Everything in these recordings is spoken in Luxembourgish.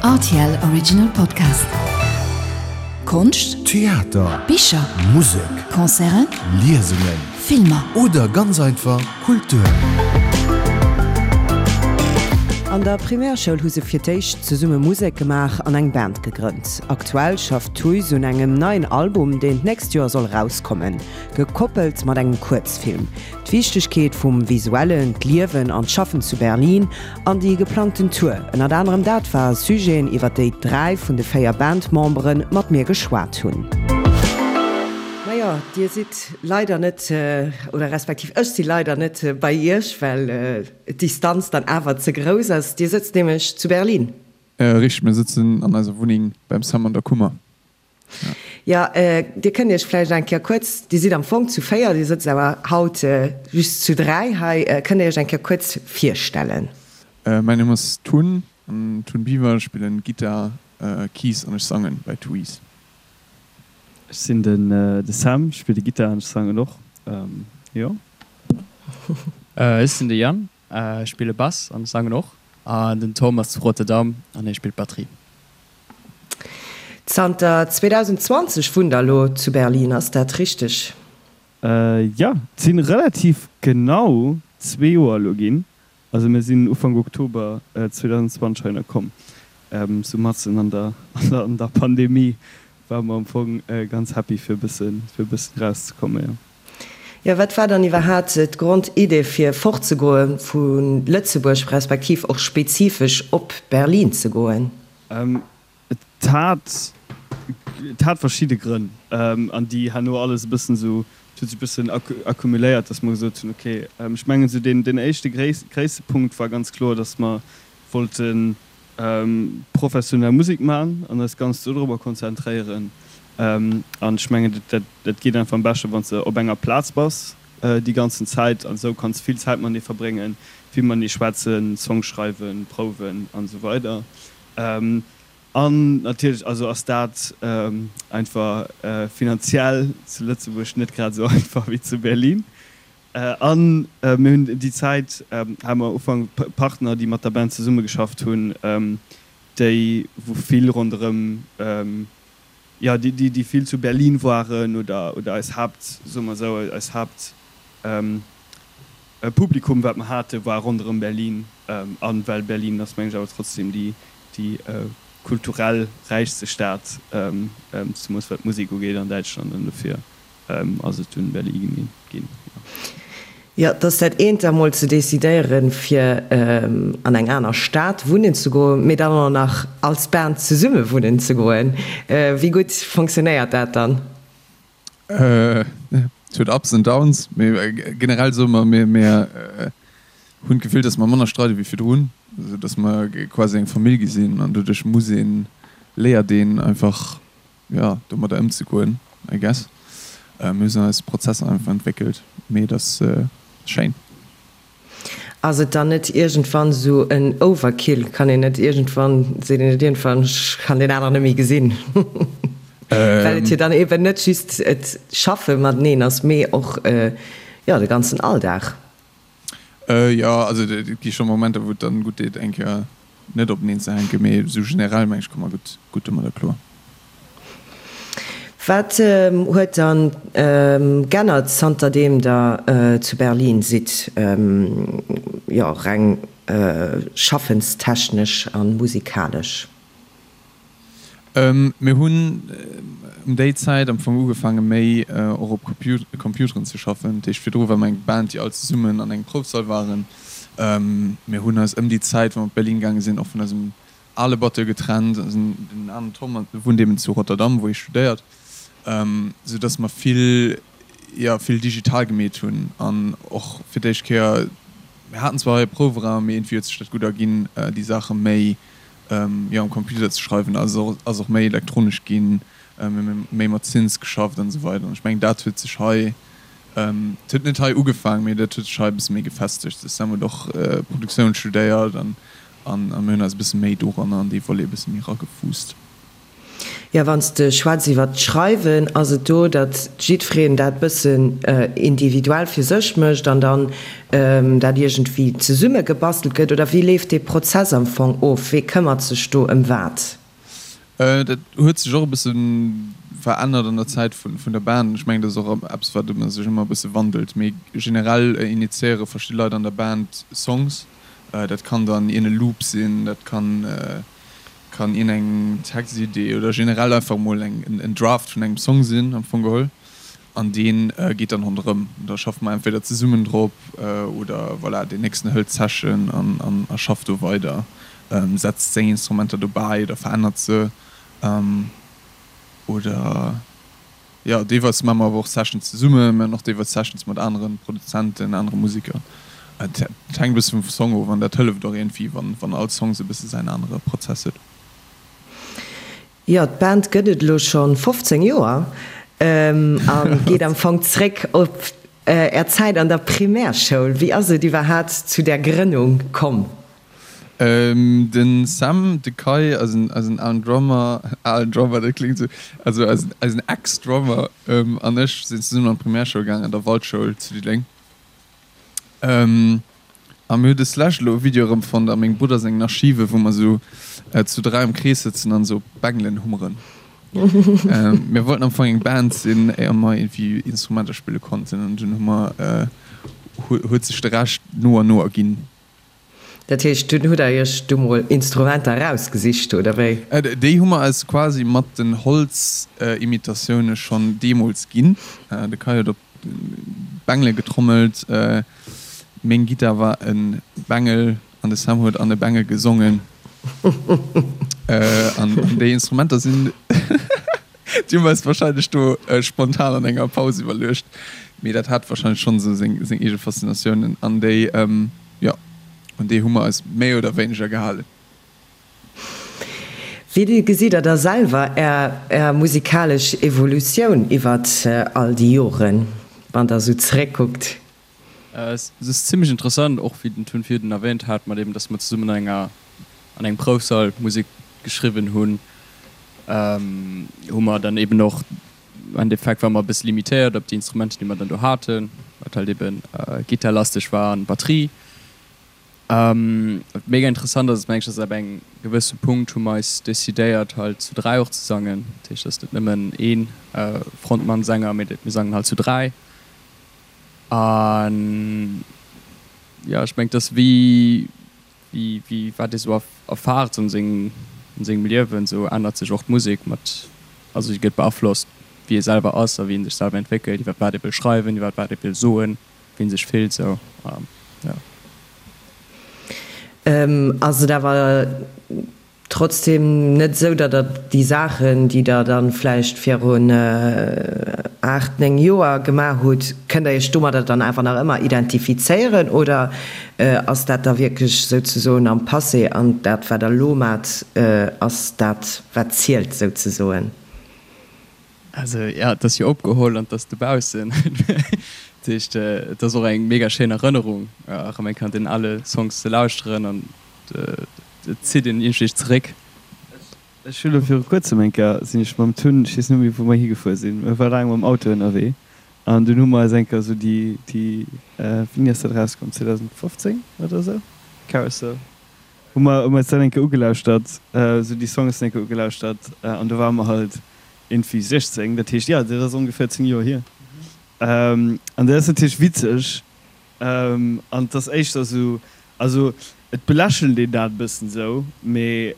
Rtl Original Podcast. Konscht, Theater, Bicher, Musek, Concerten, Liesungen Filmer. Oder ganz einfach Kultur. An der Primärschoul hu se fir d'éischt zesumme Musek gemaach an eng Band gegrënnt. Aktuell schafft Tuys un engem neien Album, deen d'nächst Joer soll erauskommen, gekoppelt mat engem Kuerzfilm. D'Wichtegkeet vum Visuellen, d'Liewen an d'Schaffen zu Berlin an déi geplangten Tour, ënnert anerem dat ware Sujeten, iwwer déi 3 vun de 4 Bandmembere mat mir geschwat hunn. Majo, dir sidd leider net, oder respektiv ech si leider net bei iech, well d'Distanz dann awer ze grouss ass. Dir sëtzt nämlech zu Berlin. Richteg, mir sëtzen an eiser Wunneng beim Sam an der Kummer. Jo, Dir kënnt Iech vläicht eng Kéier kuerz, Dir sidd am Fong zu 4, Dir sëtzt awer haut just zu 3 hei, kënnt Dir Iech eng Kéier kuerz virstellen? Mäin Numm ass Tun, Tun Biver, ech spillen Gittar, Keys an ech sangen bei Tuys. Ech sinn den de Sam, ech spille Gittar an ech sangen och, jo. Ech sinn de Yann, ech spille Bass an ech sangen och. An den Tom ass zu Rotterdam an hie spillt Batterie. Zanter 2020 wunnt der elo zu Berlin, ass dat richteg? Jo, et si relativ genau zwee Joer elo ginn. Also mir sinn Ufank Oktober 2020 heihinner komm. Sou matzen an der an der Pandemie ware mer am Fong ganz happy fir e bëssen fir e bëssen erauszekommen, jo. Jo, wat war dann iwwerhaat d'Grondidee fir fortzegoe vu Lëtzebuerg, respektiv och spezifesch op Berlin ze goen? Et hat, et hat verschidde Grënn, an déi herno alles e bëssen esou, et huet sech e bëssen accumuléiert, datt mer gesot hunn, okay, ech mengen esou deen, deen éischte gréisste Punkt war ganz kloer, datt mer wollte professionell Musek maachen an eis ganz dodrobber konzentréieren. An ech mengen, dat, dat geet einfach am beschte wann s de op enger Plaz bass déi ganzen Zäit an esou kanns vill Zäit matenee verbréngen, vill matenee schwätzen, Songs schreiwen, prouwen an esou weider. An natierlech also ass dat einfach finanziell zu Lëtzebuerg net grad esou einfach wéi zu Berlin. An mir hunn déi Zäit, hate mer Ufank Partner, déi mat der Band zesummegeschafft hunn, déi wou vill ronderëm, jo déi déi vill zu Berlin waren oder oder eis Haapt, soe mer esou, eis Haapt Publikum wat mer hate war ronderëm Berlin. An well Berlin ass mengen ech awer trotzdem déi déi kulturell räichste Stad, zemoos wat d'Musek ugeet an Däitschland an dofir ass et dunn Berlin ginn, jo. Jo, et ass dat eent emol ze decidéieren, fir an eng aner Stad wunnen ze goen, mee dann och nach als Band zesumme wunnen ze goen. Wéi gutt fonctionnéiert dat dann? Et huet Ups and Downs, mee generell soe mer, mir mir hunn d'Gefill, datt mer manner streide wéi virdrun, esou datt mer quasi eng Famill gi sinn an doduerch muss een, léiert een einfach, jo, domadder ëmzegoen, I guess. Mir hunn eis Prozesser einfach entwéckelt, mee et ass schéin. Ass et dann net iergendwann esou en Overkill? Kann een net iergendwann, seet een net iergendwann, ech kann deen aneren net méi gesinn? Well et jo dann eben net just et Schaffe mateneen ass, mee och, jo, de ganzen Alldag. Jo, also et gi scho Momenter, wou et dann gutt deet, eng Kéier net openeen ze hänken, mee esou generell meng ech komme mer gutt, gutt domadder kloer. Wat huet dann g'ännert zanterdeem der zu Berlin sidd, jo reng schaffenstechnesch a musikalesch? Mir hunn ëm déi Zäit am Fong ugefaange méi och op Computeren ze schaffen. Dat heescht virdru war mer eng Band déi all zesummen an engem Proufsall waren. Mir hunn eis ëm déi Zäit wou mer op Berlin gaange sinn och vun eisem ale Batteur getrennt. Den aneren Tom wunnt eben zu Rotterdam wou hie studéiert, sou dass mer vill, jo vill digital gemeet hunn an och fir d'éischt Kéier, mir haten zwar hei e Prouweraum, mee iergendwéi huet sech dat gutt erginn déi Saache méi jo am Computer ze schreiwen ass och ass och méi elektronesch ginn, mir hu méi mat Synths geschafft an esou weider an ech mengen dat huet sech hei, et huet net hei ugefaang, mee dat huet sech hei e bësse méi gefestegt. De Sam huet och Produktioun studéiert an an mir hunn eis e bësse méi doranner an dee Volet e bësse méi eragefuusst. Jo, wann s de schwätz iwwert d'Schreiwen, ass et do, datt jiddwereen dat bëssen individuell fir sech mécht an dann dat iergendwéi zesumme gebastelt gëtt? Oder wéi leeft dee Prozess am Fong of? Wee këmmert sech do ëm wat? Dat huet sech och e bësse verännert an der Zäit vun der Band. Ech mengen, dat ass och eppes, wat sech ëmmer e bësse wandelt. Mee generell initiéiere verschidde Leit an der Band Songs. Dat kann dann iergend e Loop sinn, dat kann Kann een eng Textidee oder generell einfach mol eng en Draft vun engem Song sinn am Fong geholl an deen geet dann ronderëm. Da schaffe mer entweder zesummen drop oder voilà deen nächsten hëlt d'Session an an a schafft do weider, setzt seng Instrumenter dobäi oder verännert se oder. Jo, deelweis maache mer awer och Sessions zesummen, mir hunn och deelweis Sessions mat anere Produzenten, anere Museker. Et hänkt e bësse vum Song of an dat hëlleft och iergendwéi, wann all Song sou e bësse säin anere Prozess huet. Jo, d'Band gëtt et elo scho 15 Joer a geet am Fong zréck op Är Zäit an der Primärschoul. Wéi ass et iwwerhaat zu där Grënnung komm? Den Sam, de Kai, eisen eisen alen Drummer, alen Drummer, dat kléngt esou, also eisen eisen Ex-Drummer, an ech sinn zesummen an d'Primärschoul gaangen, an der Waldschoul zu Diddeleng. A mir hu deslescht elo e Video erëmfonnt a mengem Brudder sengen Archive, wou mer esou zu 3 am Krees sëtzen an esou op Bengelen hummeren. Mir wollten am Fong eng Band sinn, éier mer iergendwéi Instrumenter spille konnten, an dunn hu mer, huet sech de Rescht no an no erginn. Dat heescht, dunn hutt der iech du mol Instrumenter erausgesicht, oder wéi? Déi hu mer eis quasi mat den Holzimitatioune schonn deemools ginn. De Kai huet op Bengele getrommelt, meng Gittar war e Bengel an de Sam huet an e Bengel gesongen. An déi Instrumenter sinn. Déi hu mer eis wahrscheinlech do spontan an enger Paus iwwerluecht, mee dat hat wahrscheinlech schonn esou seng eege Faszinatiounen an déi, jo, un déi hu mer eis méi oder wéineger gehalen. Wéi gesitt der da selwer är musikalesch Evolutioun iwwert all déi Joren, wann der esou zeréckkuckt? Et ass zimmlech interessant, och wéi den Tun virdun erwähnt hat, mat eben, dass mer zesummen an enger, an engem Proufsall Musek geschriwwen hunn, hu mer dann eben och, am Endeffekt ware mer e bësse limitéiert op déi Instrumenter, déi mer dann do haten, wat halt eben gittarlasteg war an Batterie. Wat mega interessant ass, ass mengen ech, dass ab engem gewësse Punkt hu mer eis decidéiert halt zu 3 och ze sangen. Dat heescht, et ass net nëmmen ee Frontmann, Sänger, mee mir sangen halt zu 3. An jo, ech mengen, et ass wéi, wéi, wéi wat ee sou erfaart an sengem, an sengem Liewen, sou ännert sech och d'Musek mat, also si gëtt beaflosst, wéi ee selwer ass a wéi ee sech selwer entwéckelt, iwwer wat ee wëll schreiwen, iwwer wat ee wëll soen, wéi ee sech fillt, sou, jo. Ass et awer Trotzdem net esou, datt Der déi Saachen, déi Der dann vläicht virun 8, 9 Joer gemaach hutt, kënnt Der Iech domadder dann awer nach ëmmer identifizéieren oder ass dat da wierklech souzesoen am Passé an dat, wat Der elo maacht, ass dat, wat zielt souzesoen? Also jo, et ass jo opgeholl an et ass dobaussen. Dat heescht, et ass och eng mega schéin Erënnerung, erëm eng Kéier an deenen ale Songs ze lauschteren an et zitt een iergendwéi zeréck. Ech hu lo viru kuerzem eng Kéier, sinn ech mam Tun, ech weess net méi wou mer higefuer sinn, mir ware laang mam Auto ënnerwee an dunn hu mer eis eng Kéier esou déi, déi, wéini ass dat erauskomm, 2015 oder esou, Carousel, hu mer, hu mer eis dat eng Kéier ugelauschtert, esou déi Songs eng Kéier ugelauschtert an do ware mer halt iergendwéi 16, dat heescht, jo, dat ass ongeféier 10 Joer hier an dat ass natierlech witzeg. An et ass éischter esou, also et belächelt een dat e bëssen esou, mee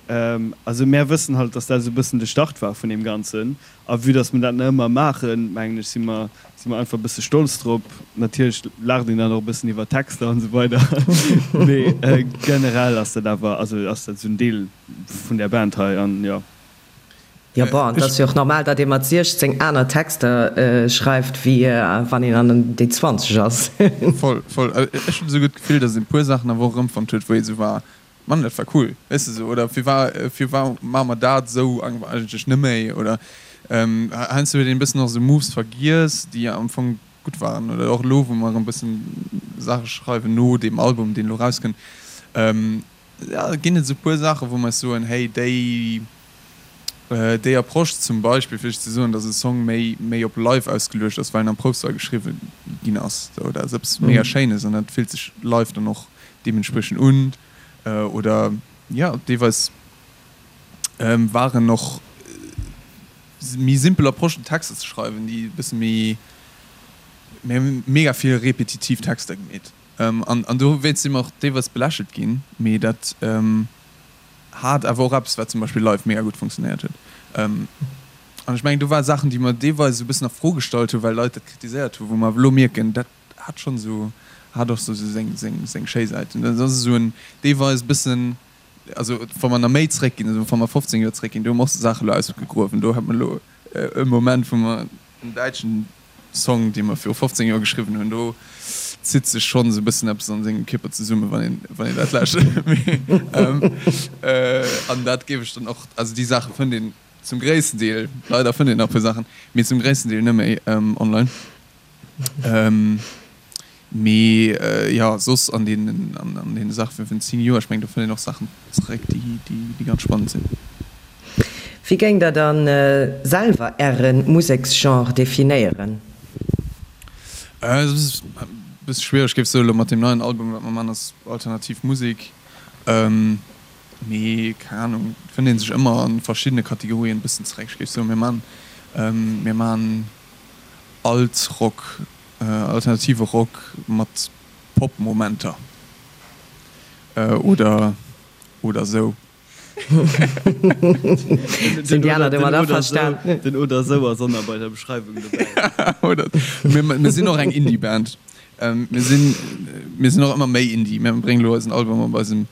also mär wëssen halt, dass dat esou e bëssen de Start war vun deem Ganzen. A vue dass mer dat nach ëmmer maachen, mengen ech, si mer, si mer einfach e bësse stolz drop. Natierlech laacht een dann och e bëssen iwwer d'Texter an esou weider, mee generell ass dat awer, also ass dat esou en Deel vun där Band hei an jo. Jo, bon, et ass jo och normal, datt ee mat 16 aner Texter schreift, wéi wann een an déi 20 ass. Voll, voll. Ech hunn esou gutt d'Gefill, datt een e puer Saachen awer och erëmfonnt huet, wou ee sou war, Mann, dat war cool, weess de sou. Oder firwar, firwar maache mer dat esou eigentlech net méi? Oder heiansdo huet een e bëssen och esou Moves vergiess, déi am Fong gutt waren. Oder och elo, wou mer erëm e bëssen Saache schreiwen no deem Album, deen elo erauskënnt, Jo, ginn et esou puer Saachen, wou mer eis soen, hey, déi. Déi Approche zum Beispill, fir lech ze soen, dass e Song méi, méi op live ausgeluecht ass, well en am Proufsall geschriwwen ginn ass, sou, dat ass eppes mega Schéines an dat fillt sech live dann och deementspriechend un. Oder jo, deelweis waren och méi simpel Approchen, Texter ze schreiwen, déi e bësse méi, mir hu mega vill repetitiv Texter gemeet an, an dowéinst si mer och deelweis belächelt ginn, mee dat. Hat awer och eppes, wat zum Beispill live mega gutt funktionéiert huet. An ech mengen, do ware Saachen, déi mer deelweis esou e bëssen a Fro gestallt hunn, well Leit dat kritiséiert hunn, wou mer awer elo mierken, dat hat schonn esou, hat och esou seng, seng, seng schéi Säiten. Dat ass esou en deelweis e bëssen, also wa mer nach méi zréckginn, also wa mer 15 Joer zréckginn, do hu mer och Saache elo ausgegruewen. Do hat mer elo e Moment, wou mer en däitschen Song, dee mer viru 15 Joer geschriwwen hunn, do zitt sech schonn esou e bëssen eppes an sengem Kierper zesummen, wann een, wann een dat lauschtert. Mee, an dat géif ech dann och, also déi Saache fënnt een zum gréissten Deel, leider fënnt een nach e puer Saachen, mee zum gréissten Deel net méi online. Mee jo, soss an deenen, an deene Saache vun 10 Joer, ech mengen, do fënnt een och Saachen zeréck, déi, déi ganz spannend sinn. Wéi géingt der dann selwer äre Museksgenre definéieren? Et ass e bësse schwiereg, géif soen, elo mat deem neien Album, wat mer man, ass alternativ Musek. Mee keng Ahnung, et fënnt ee sech ëmmer a verschiddene Kategorien e bëssen zeréck. Ech géif soen, mir man, mir man Alt-Rock, Alternative Rock mat Pop-Momenter oder oder sou. Sinn déi aner domat averstan? Den oder sou ass och nach bei der Beschreiwung dobäi. Oder mir sinn och eng Indie-Band. Mir sinn mir sinn och ëmmer méi Indie. Mir bréngen elo eisen Album op eisem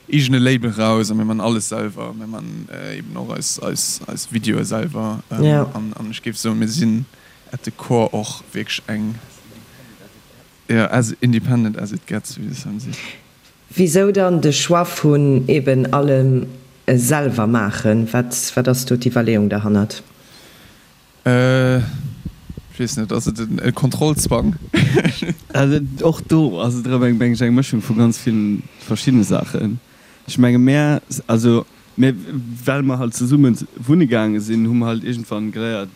eegene Label raus a mir man alles selwer. Mir man eben och eis eis eis Videoe selwer. An ech géif soen, mir sinn at the core och wierklech eng, jo, as independent as it gets, wéi de Sam seet. Wisou dann de Choix vun eben allem selwer maachen? Wat, wat ass do d'Iwwerleeung derhannert? Ech weess net, ass et e Kontrollzwang? Och do ass et erëm eng, meng ech, eng Mëschung vu ganz ville verschiddene Saachen. Ech menge mär, also Mä well mer halt zesumme wunne gaange sinn, hu mer halt iergendwann geléiert,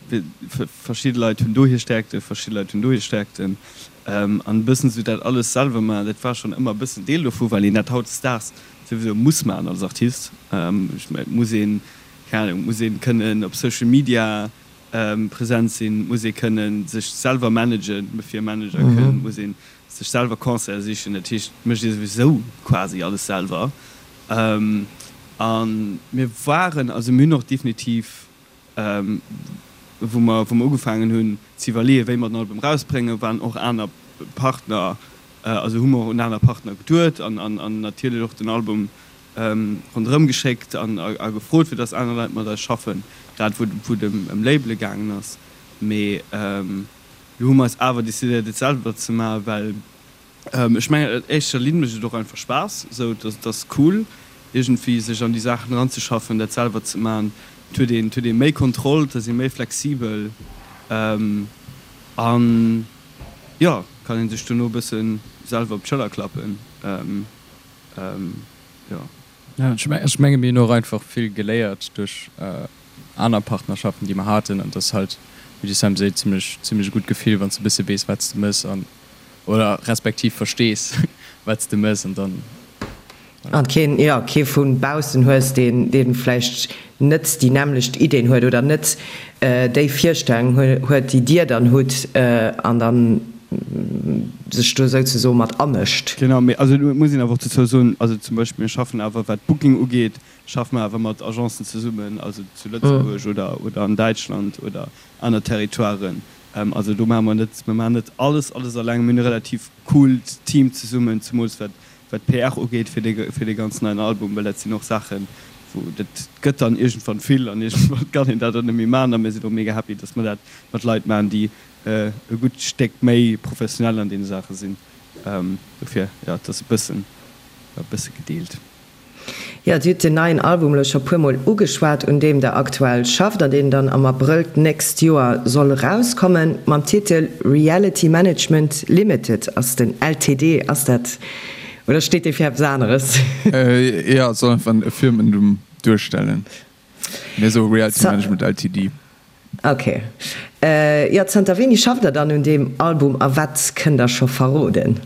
verschidde Leit hunn do hir Stärkten, verschidde Leit hunn do hir Stärkten. An e bëssen esou dat alles selwer maachen, dat war schonn ëmmer e bëssen Deel dovu, well een dat hautdesdaags souwisou muss maachen als Artist. Ech mengen, et muss een, keng Ahnung, et muss ee kënnen op Social Media present sinn, et muss ee kënnen sech selwer managen, bevir e Manager kënnt, et muss ee sech selwer Concerte sichen. Dat heescht, et mécht ee souwisou quasi alles selwer. A mir waren, also mir hunn och definitiv, wou mer, wou mer ugefaangen hunn ze iwwerleeën, wéi mer den Album erausbréngen, waren och aner Partner, also hu mer och un aner Partner geduet an, an natierlech och den Album ronderëm geschéckt an a gefrot, fir datt aner Leit mat eis schaffen, grad wou, wou et ëm Labele gaangen ass. Mee elo hu mer eis awer decidéiert, et selwer ze maachen, well Ech mengen an éischter Linn mécht et och einfach Spaass, esou et ass cool iergendwéi sech an déi Saachen eranzeschaffen, dat selwer ze man. Et huet een, et huet ee méi Kontroll, et ass ee méi flexibel an jo, kann een sech dono e bësse selwer op d'Schëller klappen, jo. Jo, ech menge mir hunn och einfach vill geléiert duerch aner Partnerschaften, déi mer haten an et ass halt, wéi de Sam seet, zimmlech, zimmlech e gutt Gefill, wann s de e bësse weess, wat s de mëss an Oder respektiv verstees, wat s de mëss an dann. An keen, jo, kee vu baussen hues, deen, dee vläicht net déi nämmlecht Ideen huet oder net déi Virstellung huet, déi Dir dann hutt an dann sech do souzesoe mat amëscht. Genau, mee also et muss een awer och dozou soen, also zum Beispill mir schaffen awer, wat d'Booking ugeet, schaffe mer awer mat Agencen zesummen, also zu Lëtzebuerg oder, oder an Däitschland oder aner Territoiren. Also do maache mer net, mir maachen net alles, alles alleng. Mir hunn e relativ coolt Team zesummen, zemools wat wat d'PR ugeet fir dee fir dee ganz neien Album, well dat sinn och Saachen, wou dat gëtt dann iergendwann vill an iergendwann kann een dat och net méi maachen. A mir sinn och mega happy, datt mer dat mat Leit maachen, déi e gutt Stéck méi professionell an deene Saache sinn. Dofir, jo, et ass e bëssen, e bësse gedeelt. Jo, Dir hutt den neien Album elo scho puer mol ugeschwat, un deem Der aktuell schafft an deen dann am Abrëll d'nächst Joer soll erauskommen. Mam Titel Reality Management Limited ass den LTD, ass dat oder steet dee fir eppes aneres? Jo, et soll einfach e Firmennumm duerstellen. Mir soe Reality Management Ltd. Ok. Jo, zanter wéini schafft der dann un deem Album a wat kënnt der scho verroden?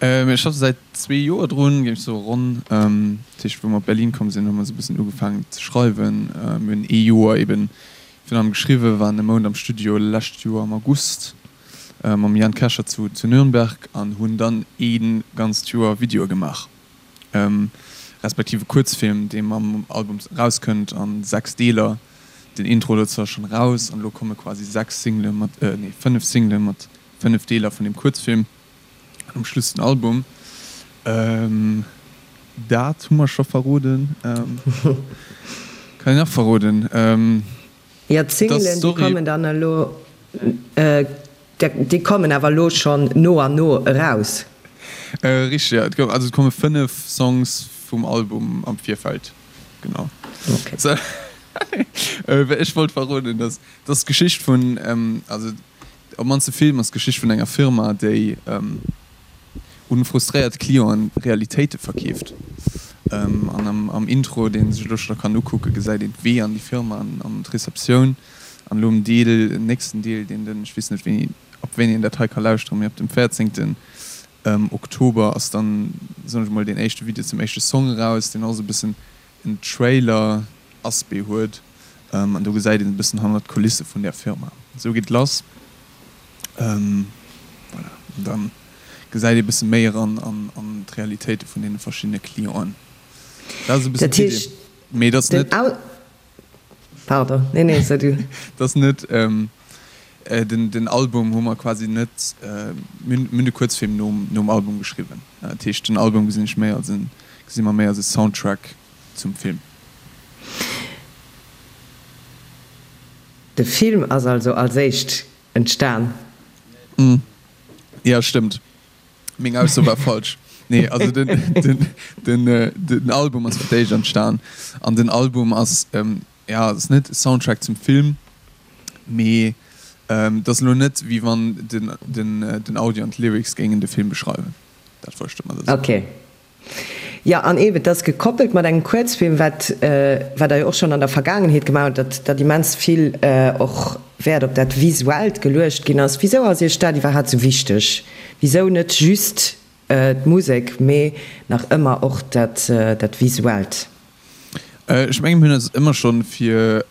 Mir schaffe säit zwee Joer drun, géif ech soe ronn. Dat heescht, wou mer op Berlin komm sinn, hu mer esou e bëssen ugefaangen ze schreiwen. Mir hunn ee Joer eben virun allem geschriwwen, waren e Mount am Studio lescht Joer am August mam Jan Kescher zu Nürnberg an hunn dann ee ganzt Joer Videoe gemaach. Respektiv e Kuerzfilm, dee mam Album erauskënnt a 6 Deeler. Den Intro dozou ass schonn eraus an elo komme quasi 6 Single mat, nee 5 Single mat 5 Deeler vun deem Kuerzfilm an um Schluss den Album. Dat hu mer scho verroden. Kann een nach verroden? Jo, d'Singelen, déi kommen dann elo. Déi kommen awer elo schonn no an no eraus. Richteg, jo. Et gouf, also et komme 5 Songs vum Album am Virfeld, genau. Ok. Ech wollt verroden, dass dass d'Geschicht vun, also op mannst de Film ass d'Geschicht vun enger Firma, déi un frustréiert Clienten Realitéite verkeeft. An am Intro, deen sech elo scho kann ukucken, gesäit een d'Wee an déi Firma an d'Receptioun. An elo um Deel, den nächsten Deel, deen den, ech weess net wéini, ab wéini een dat hei ka lauschteren, mee ab dem 14. Oktober ass dann, soen ech emol, deen éischte Video zum éischte Song eraus, deen och esou e bëssen en Trailer-Aspect huet. An do gesäit een e bëssen hannert d'Kulisse vun där Firma. Esou geet et lass. Voilà, an da gesäit ee bësse méi eran an d'Realitéite vun deene verschiddene Clienten. Dat ass e bëssen d'Idee. Mee et ass net. Pardon, nee, nee, so du. Dat ass net, den Album hu mer quasi net, mir hunn de Kuerzfilm nom Album geschriwwen. Dat heescht, den Album gesinn ech méi als en, gesi mer méi als e Soundtrack zum Film. De Film ass also als éischt entstan? Jo, stëmmt. Meng Ausso war falsch. Nee, also den, den, den, den Album ass fir d'éischt entstan. An den Album ass, ja, ass net e Soundtrack zum Film, mee et ass elo net, wéi wann den, den, den Audio an d'Lyrics géingen de Film beschreiwen. Dat wollt ech domadder soen. Okay. Jo, an eeben, et ass gekoppelt mat engem Kuerzfilm, wat, wat Der jo och schonn an der Vergaangenheet gemaach hutt, datt, datt immens vill och Wäert op dat Visuellt geluecht ginn ass. Wisou ass Iech dat iwwerhaapt esou wichteg? Wisou net just d'Musek, mee nach ëmmer och dat, dat Visuellt? Ech mengen, mir hunn eis ëmmer schonn fir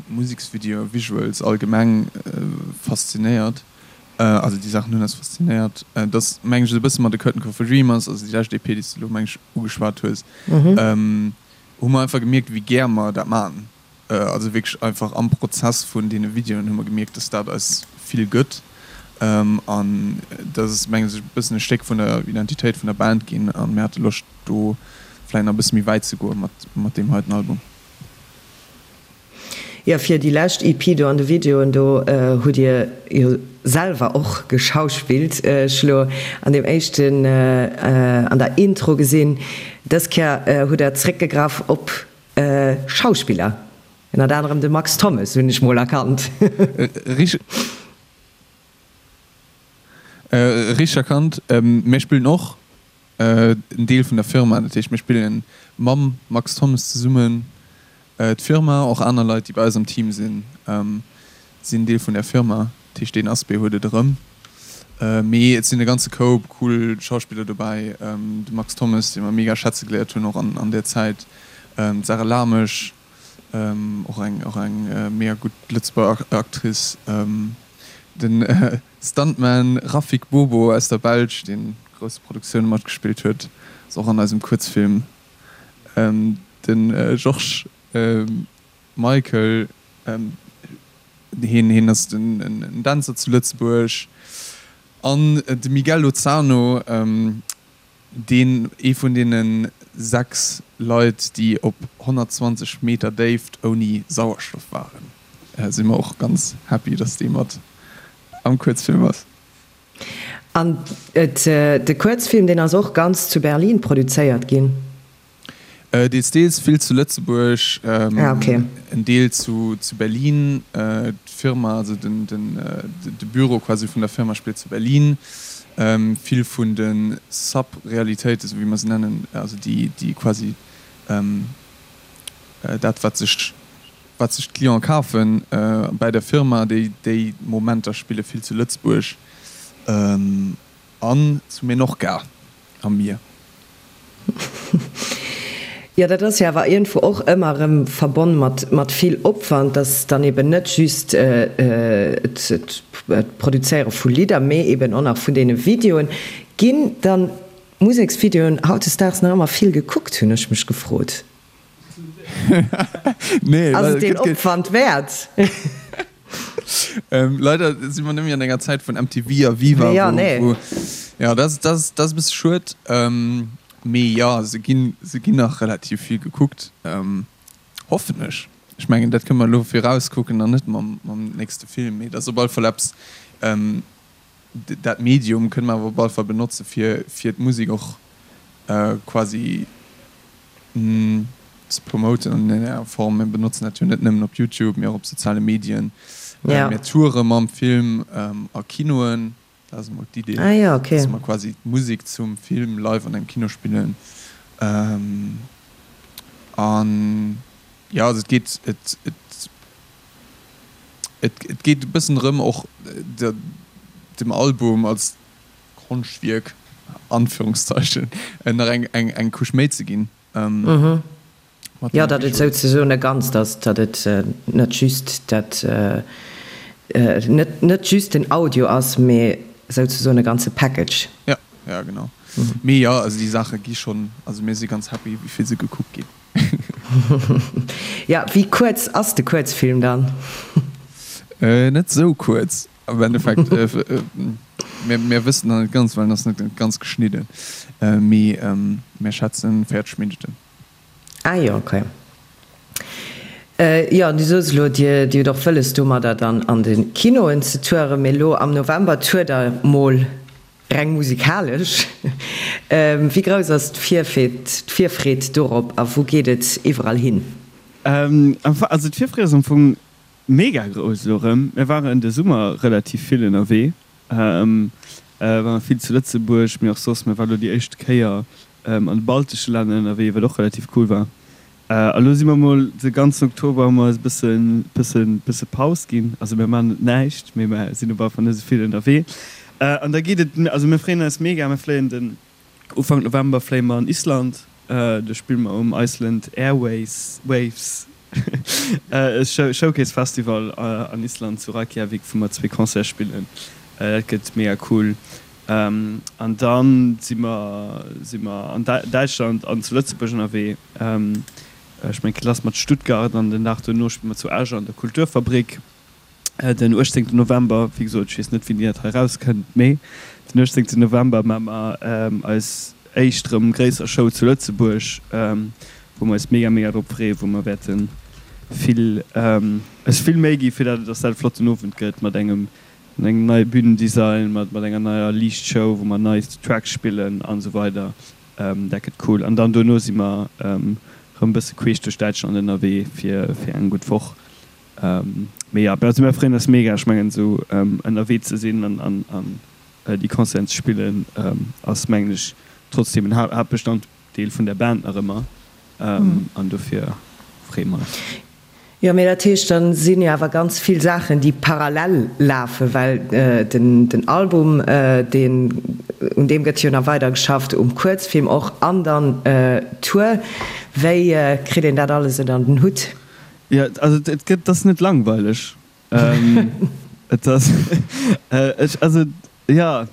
Museksvideoen, Visuals allgemeng faszinéiert. Also déi Saachen hunn eis faszinéiert. Et ass meng ech esou e bësse mat A Curtain Call for Dreamers, also déi lescht EP, déi s de elo meng ech ugeschwat hues, hu mer einfach gemierkt, wéi gär mer dat maachen. Also wierklech einfach am Prozess vun deene Videoen hu mer gemierkt, dass dat eis vill gëtt. An dat ass meng ech e bëssen e Stéck vun der Identitéit vun der Band ginn a mir hate Loscht do vläicht nach e bësse méi wäit ze goe mat deem heiten Album. Jo, fir déi lescht EP do an de Videoen do hutt dir jo selwer och geschauspillt. Ech hu lo an deem éischten, an der Intro gesinn. Dës Kéier hutt der zréckgegraff op Schauspiller, ënnert anerem de Max Thommes hunn ech mol erkannt. Richteg erkannt. Mir spillen och en Deel vun der Firma, dat heescht mir spillen mam Max Thommes zesummen d'Firma, och aner Leit déi bei eis am Team sinn, sinn Deel vun där Firma, dat heescht deen Aspect huet et erëm. Mee et sinn e ganze Koup cool Schauspiller dobäi, de Max Thommes, dee mer mega schätze geléiert hunn och an där Zäit, d'Sarah Lamesch, och eng och eng mega gutt Lëtzebuerger Actrice, den Stuntman Rafik Bobo aus der Belsch, deen grousse Produktioune matgespillt huet, ass och an eisem Kuerzfilm. De Georges Michael, hien hien ass en Dänzer zu Lëtzebuerg. An de Miguel Lozano, deen ee vun deene 6 Leit, déi op 120 Meter Déift ouni Sauerstoff waren. Si mer och ganz happy, dass dee mat am Kuerzfilm ass. An de Kuerzfilm, deen ass och ganz zu Berlin produzéiert ginn? Deels, deels, vill zu Lëtzebuerg, en Deel zu Berlin. D'Firma, also de Büro quasi vun der Firma spillt zu Berlin. Vill vun de Sub-Realitéiten, esou wéi mer se nennen, also déi quasi dat wat sech. wat sech d'Clienten kafen bäi der Firma, déi déi Momenter spille vill zu Lëtzebuerg an zu Menorca am Mier. Jo, dat ass jo awer iergendwou och ëmmer erëm verbonn mat mat vill Opwand, dass dann eben net just d'Produzéiere vu Lidder, mee eben och nach vun deene Videoen. Ginn dann d'Museksvideoen hautdesdaags nach ëmmer vill gekuckt, hunn ech mech gefrot. Nee, Ass et deen Opwand wäert? Leider si mer net méi an enger Zäit vun MTV a Viva, Ja, nee. wou, jo, dat ass, dat ass e bësse schued. Mee jo, se ginn, se ginn nach relativ vill gekuckt, hoffen ech. Ech mengen, dat kënne mer elo virauskucken an net mam, mam nächste Film. Mee dat ass op alle Fall eppes, dat Medium kënne mer awer op alle Fall benotze fir, fir d'Musek och quasi ze promoten an enger Form. Mir benotzen dat jo net nëmmen op Youtube, mee och op soziale Medien. Mir toure mam Film a Kinoen, dat ass emol d'Idee, dass mer quasi d'Musek zum Film live an engem Kino spillen. An jo, also et geet, et, et geet e bëssen drëm och dem Album als Konschtwierk, Anführungszeichen, nach eng eng eng Couche méi ze ginn. Mat Jo, datt et souzesoen e Ganzt ass, datt et net just dat, net net just den Audio ass, mee souzesoen e ganze Package. Ja, ja genau. Mee jo, also déi Saache gi schonn, also mir si ganz happy, wéi vill se gekuckt ginn. Ja, wéi kuerz ass de Kuerzfilm dann? Net sou kuerz. Am Endeffekt, mir, mir wëssen nach net ganz, well en ass net ganz geschnidden, mee mir schätzen 40 Minutten. Ah jo, okay. Jo, an du soos elo, Dir, Dir hutt och wëlles domadder dann an de Kinoen ze touren, mee elo am November tourt Der mol reng musikalesch. Wéi grouss ass d'Virfreed dorop a wou geet et iwwerall hin? Also d'Virfreed ass am Fong Mega grouss elo erëm. Mir waren de Summer relativ vill ënnerwee, waren vill zu Lëtzebuerg, mee och soss. Mir waren elo déi éischt Kéier an de baltesche Länner ënnerwee, wat och relativ cool war. A lo si mer mol de ganzen Oktober hu mer eis e bëssen, bëssen, bësse Paus ginn. Also mir maachen net näischt, mee mer sinn op alle Fall net esou vill ënnerwee. An da geet et, also mir freeën eis mega, mir fléien den Ufank November fléie mer an Island, do spille mer um Iceland Airways Waves Showcase Festival an Island zu Reykjavik, wou mer zwee Concerte spillen. Dat gëtt mega cool. An da si mer si mer an Däitschland an zu Lëtzebuerg ënnerwee. Ech mengen et geet lass mat Stuttgart an den Dag dono spille mer zu Esch an der Kulturfabrik. Den 18 November, wéi gesot, ech weess net wéini dat hei erauskënnt, mee den 18 November maache mer eis éischt erëm gréisser Show zu Lëtzebuerg, wou mer eis mega mega drop freeën, wou mer wäerte vill eis vill Méi gi fir dat dass dat e flotten Owend gëtt mat engem mat engem neie Bühnendesign, mat mat enger neier Liichtshow, wou mer nei Tracks spillen an esou weider. Dat gëtt cool. An dann dono si mer erëm e bësse queesch duerch Däitschland ënnerwee fir fir eng gutt Woch. Mee jo, also mir freeën eis mega. Ech mengen esou ënnerwee ze sinn an an déi Concerten ze spillen ass mengen ech trotzdeem en Haaptbestanddeel vun der Band nach ëmmer an dofir freeë mer eis. Jo, mee dat heescht, da sinn jo awer ganz vill Saachen, déi parallel lafen, well den den Album, deen, un deem gëtt jo nach weider geschafft, um Kuerzfilm och an dann d'Tour. Wéi kritt een dat alles ënner den Hutt? Jo, also et gëtt, et ass net langweileg. Et ass, ech, also jo,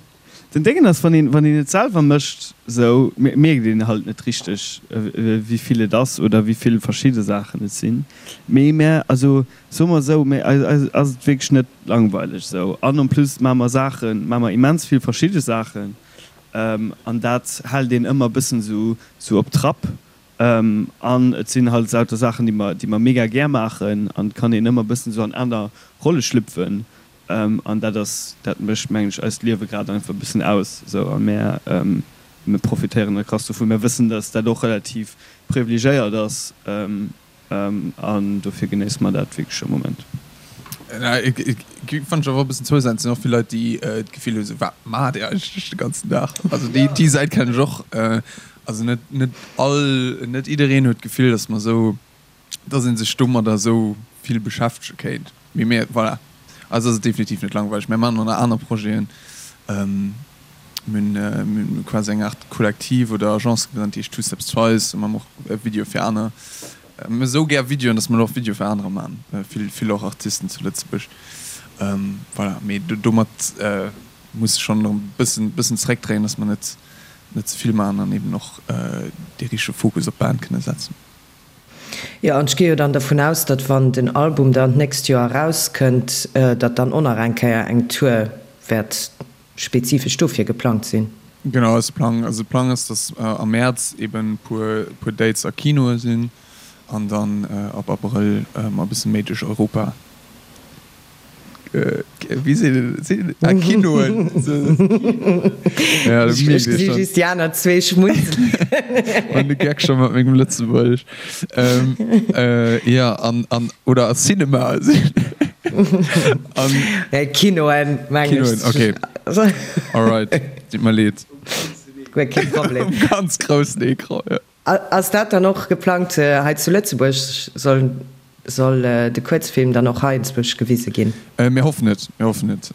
den Déngen ass, wann een, wann een et selwer mécht, esou mierkt een halt net richteg, wéi vill et ass oder wéi vill verschidde Saachen et sinn. Mee mär, also soe mer esou, mä eis, eis ass et wierklech net langweileg esou. An en plus maache mer Saachen, maache mer immens vill verschidde Saachen an dat hält een ëmmer e bëssen esou, esou op Trapp. An et sinn halt lauter Saachen, déi mer, déi mer mega gär maachen an et kann een ëmmer e bëssen esou an aner Rolle schlüpfen. An dat ass, dat mécht, mengen ech, eist Liewe grad einfach e bëssen aus esou. A mär, mir profitéieren da krass dovun. Mär wëssen, dass dat och relativ privilegéiert ass. An dofir genéisse mer dat wierklech am Moment. Fannt ech awer e bëssen zousätzlech. Et sinn och vill Leit, déi d'Gefill hu sou, wat maacht Dir eigentlech de ganzen Dag? Also déi déi Säit kennen ech och. Also net net all net jiddereen huet d'Gefill, datt mer esou. Dass ee sech domadder esou vill beschäftege kéint. Mee mir, voilà, eis ass et definitiv net langweileg. Mir maachen och nach aner Projeten. Mir hunn quasi eng Aart Kollektiv oder Agence gegrënnt, déi heescht Two Steps Twice. Do maache mer och Videoe fir aner. Mir hu esou gär Videoen, dass mer elo och Videoe fir anerer maachen, vill, vill och Artisten zu Lëtzebuerg. Voilà, mee domat muss ech schonn e bëssen, bëssen zeréckdréien, dass mer net, net ze vill maachen an eben och dee richtege Fokus op d'Band kënne setzen. Jo, an ech gi jo dann dervun aus, datt wann den Album dann d'nächst Joer erauskënnt, datt dann och nach eng Kéier eng Tour wäert spezifesch dofir geplangt sinn. Genau, eise Plang, also de Plang ass, datt am Mäerz eben e puer, puer Dates a Kinoe sinn an dann ab Abrëll e bësse méi duerch Europa Wéi seet een et? Seet een ah Kinoen? Ja, dat mierkt ee schonn. Ech gesi just déi aner zwee schmunzelen. Mann, de Geck scho mat mengem Lëtzebuergesch. Ähm, äh, ja, an, an, oder a Cinema. An. Nee, Kinoen, meng ech. Kinoen, okay. Alright, deet mer leed. Guer kee Problem. Um ganz groussen Ecran, ja. Ass dat dann och geplangt hei zu Lëtzebuerg? Soll soll de Kuerzfilm dann och hei enzwousch gewise ginn? Mir hoffen et, mir hoffen et.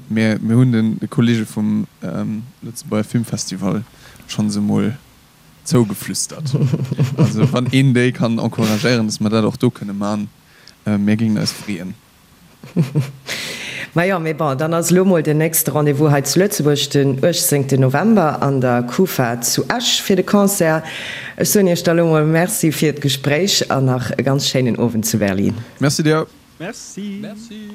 Mir mir hunn de Kollege vum Lëtzebuerger Filmfestival schonns emol zougeflüstert. Also wann een déi kann encouragéieren, datt mer dat och do kënne man, mir géingen eis freeën. Majo, mee bon, dann ass elo mol den nächste Rendez-vous hei zu Lëtzebuerg den 18 November an der Kufa zu Esch fir de Concert. Ech soen iech da lo mol Merci fir d'Gespréich an nach e ganz schéinen Owend zu Berlin. Merci dir. Merci. Merci.